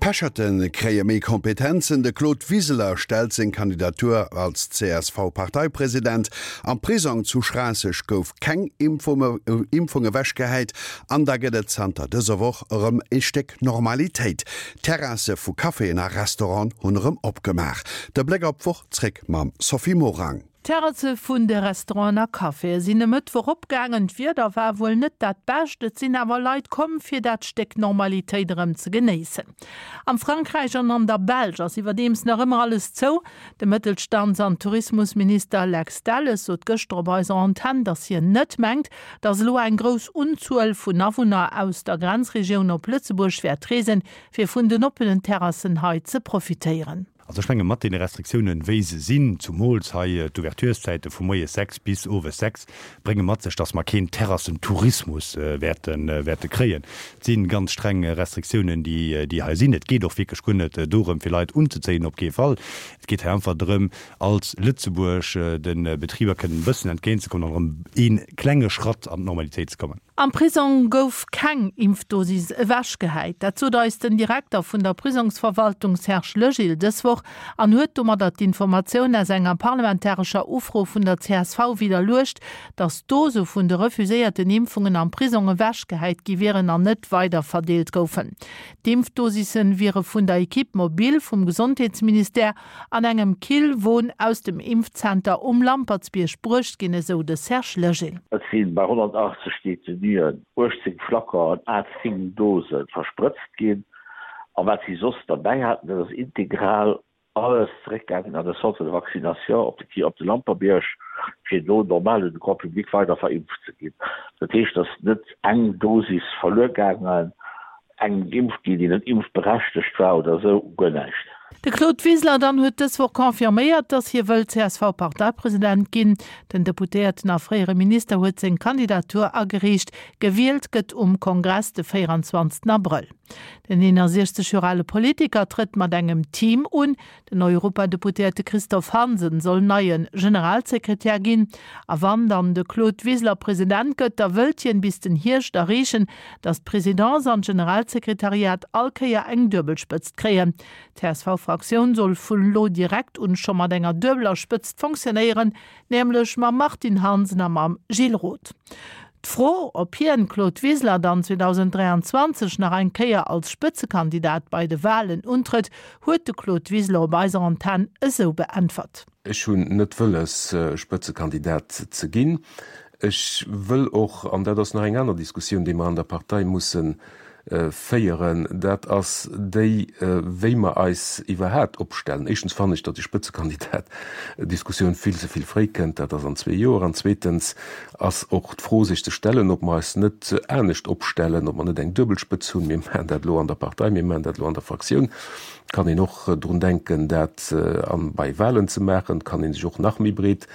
D'Pecherte kréie méi Kompetenzen, de Claude Wiseler stellt seng Kandidatur als CSV-Parteipresident, am Prisong zu Schraasseg gouf keng Impfung ewechgehäit an da gëtt et zanter dëser Woch erëm e Stéck Normalitéit, D'Terrasse vu Caféen a Restauranten hunn erëm opgemaach. De Bléck op d'Woch zréck mam Sophie Morang. D'Terrasse vun de Restauranten a Caféë sinn e Mëttwoch opgaangen. D'Wieder war wuel net dat bescht, et sinn awer Leit komm, fir dat Stéck Normalitéit erëm ze genéissen. Am Frankräich an an der Belsch ass iwwerdeems nach ëmmer alles zou. De Mëttelstands an Tourismusminister Lex Delles sot gëschter op eiser Antenn, datt hien net mengt, datt elo eng grouss Unzuel vun Awunner aus der Grenzregioun op Lëtzebuerg wäert reesen, fir vun den oppenen Terrassen hei ze profitéieren. Also ech menge mat deene Restriktiounen, wéi se sinn, zumools hei d'Ouvertureszäite vu moies 6 bis owes 6, brénge mat sech, datt mer keen Terrassentourismus wäerte wäerte kréien. Et si ganz streng Restriktiounen, déi déi hei sinn. Et geet och wierklech guer net dorëm, fir Leit unzezéien, op kee Fall. Et geet hei einfach drëm, als Lëtzebuerg de Betriber kënnen e bëssen entgéintzekommen an erëm ee klenge Schratt an d'Normalitéit ze kommen. Am Prisong gouf keng Impfdosis ewechgehäit. Dat sot eis den Direkter vun der Prisongsverwaltung Serge Legil dës Woch an huet domadder d'Informatioun aus enger parlamentarescher Ufro vun der csv widderluecht, datt Dose vun de refuséierten Impfungen am Prisong ewechgehäit gi wieren an net weiderverdeelt goufen. D'Impfdosisse wiere vun der Equipe mobile vum Gesondheetsministère An engem Killwon aus dem Impfzenter um Lampertsbierg bruecht ginn, esou de Serge Legil. Et si bei 180 Detenuen 18 Flaconen à 10 Dose versprëtzt ginn. A wat si soss derbäi haten, dat ass integral alles zeréckgaangen an de Centre de vaccination op de op de Lamperbierg, fir do normal un de Grand public weider verimpft ze ginn. Dat heescht, et ass net eng Dosis verluer gaangen. Eng geimpft ginn, déi net impfberechtegt war oder esou, guer näischt. De Claude Wiseler dann huet dës Woch confirméiert, datt hie wëll CSV-Parteipresident ginn. Den Deputéierten a fréiere Minister huet seng Kandidatur agereecht. Gewielt gëtt um Kongress de 24 Abrëll. Den 61 Joer ale Politiker trëtt mat engem Team un. Den Europadeputéierte Christophe Hansen soll neie Generalsekretär ginn. A wann dann de Claude Wiseler President gëtt, da wëllt hien bis den Hierscht erreechen, datt d'Presidence an d'Generalsekretariat all Kéier eng duebel Spëtzt kréien. D'CSV-Fraktioun soll vun elo direkt un scho mat enger duebeler Spëtzt fonctionnéieren, nämlech mam Martine Hansen a mam Gilles Roth. D'Fro, ob hien, Claude Wiseler, dann 2023 nach eng Kéier als Spëtzekandidat bei de Walen untrëtt, huet de Claude Wiseler op eiser Antenn esou beäntwert. Ech hunn net wëlles, Spëtzekandidat ze ginn. Ech wëll och, an dat ass nach eng aner Diskussioun, déi mer an der Partei musse féieren, dat ass déi, wéi mer eis iwwerhaapt opstellen. Éischtens fannen ech, datt déi Spëtzekandidat-Diskussioun vill ze vill fréi kënnt, dat ass an zwee Joer. An zweetens ass och d'Fro sech ze stellen, ob mer eis net anescht opstellen, ob mer net eng duebel Spëtz hunn. Mir maachen dat elo an der Partei, mir maachen dat elo an der Fraktioun. Et kann een och drun denken, dat bei Wahlen ze maachen. Et kann ee sech och nach méi breet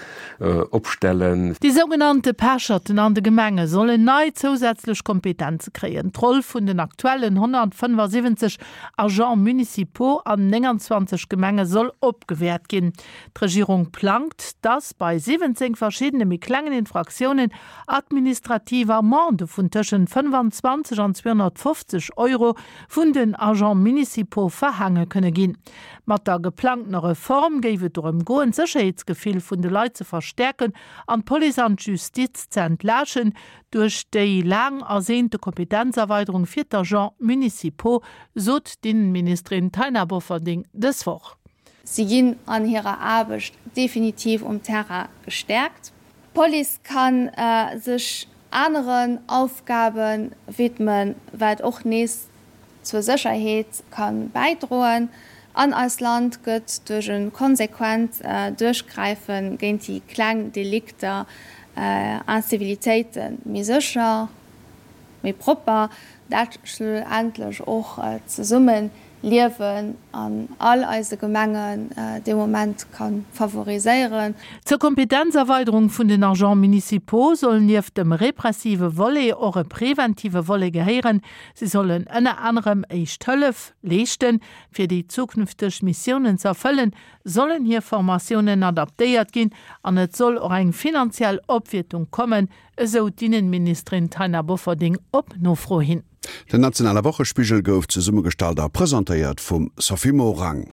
opstellen. Déi sougenannte Pecherten an de Gemenge sollen nei zousätzlech Kompetenze kréien. D'Roll vun den aktuellen 175 Agents municipaux an 29 Gemenge soll opgewäert ginn. D'Regierung plangt, dass bei 17 verschiddene méi klengen Infraktiounen administrativ Amendë vun tëschent 25 an 250 Euro vun den Agents municipaux verhaange kënne ginn. Mat der geplangtener Reform géif et dorëm goen, d'Sécherheetsgefill vun de Leit ze verstäerken an d'Police an d'Justiz ze entlaaschen duerch déi laang ersehnte Kompetenzerweiderung fir d'Agents municipaux, sot d'Innenministerin Taina Bofferding dës Woch. Si ginn an hirer Aarbecht definitiv um Terrain gestäerkt. D'Police ka sech aneren Aufgabe widmen, wat och nees zur Sécherheet ka bäidroen. An eist Land gëtt duerch e konsequent Duerchgräife géint déi kleng Delikter, Incivilitéiten, méi sécher, méi propper, dat schlussendlech och d'Zesummeliewen an all eise Gemengen dee Moment ka favoriséieren. Zur Kompetenzerweiderung vun den Agents municipaux soll nieft dem repressive Volet och e preventive Volet gehéieren. Si sollen ënner anerem Éischt Hëllef leeschten. Fir déi zukünfteg Missiounen ze erfëllen, sollen hir Formatiounen adaptéiert ginn an et soll och eng finanziell Opwiertung kommen, esou d'Innenministerin Taina Bofferding op Nofro hin. Den nationale Wochespigel gouf zesummegestallt a presentéiert vum Sophie Morang.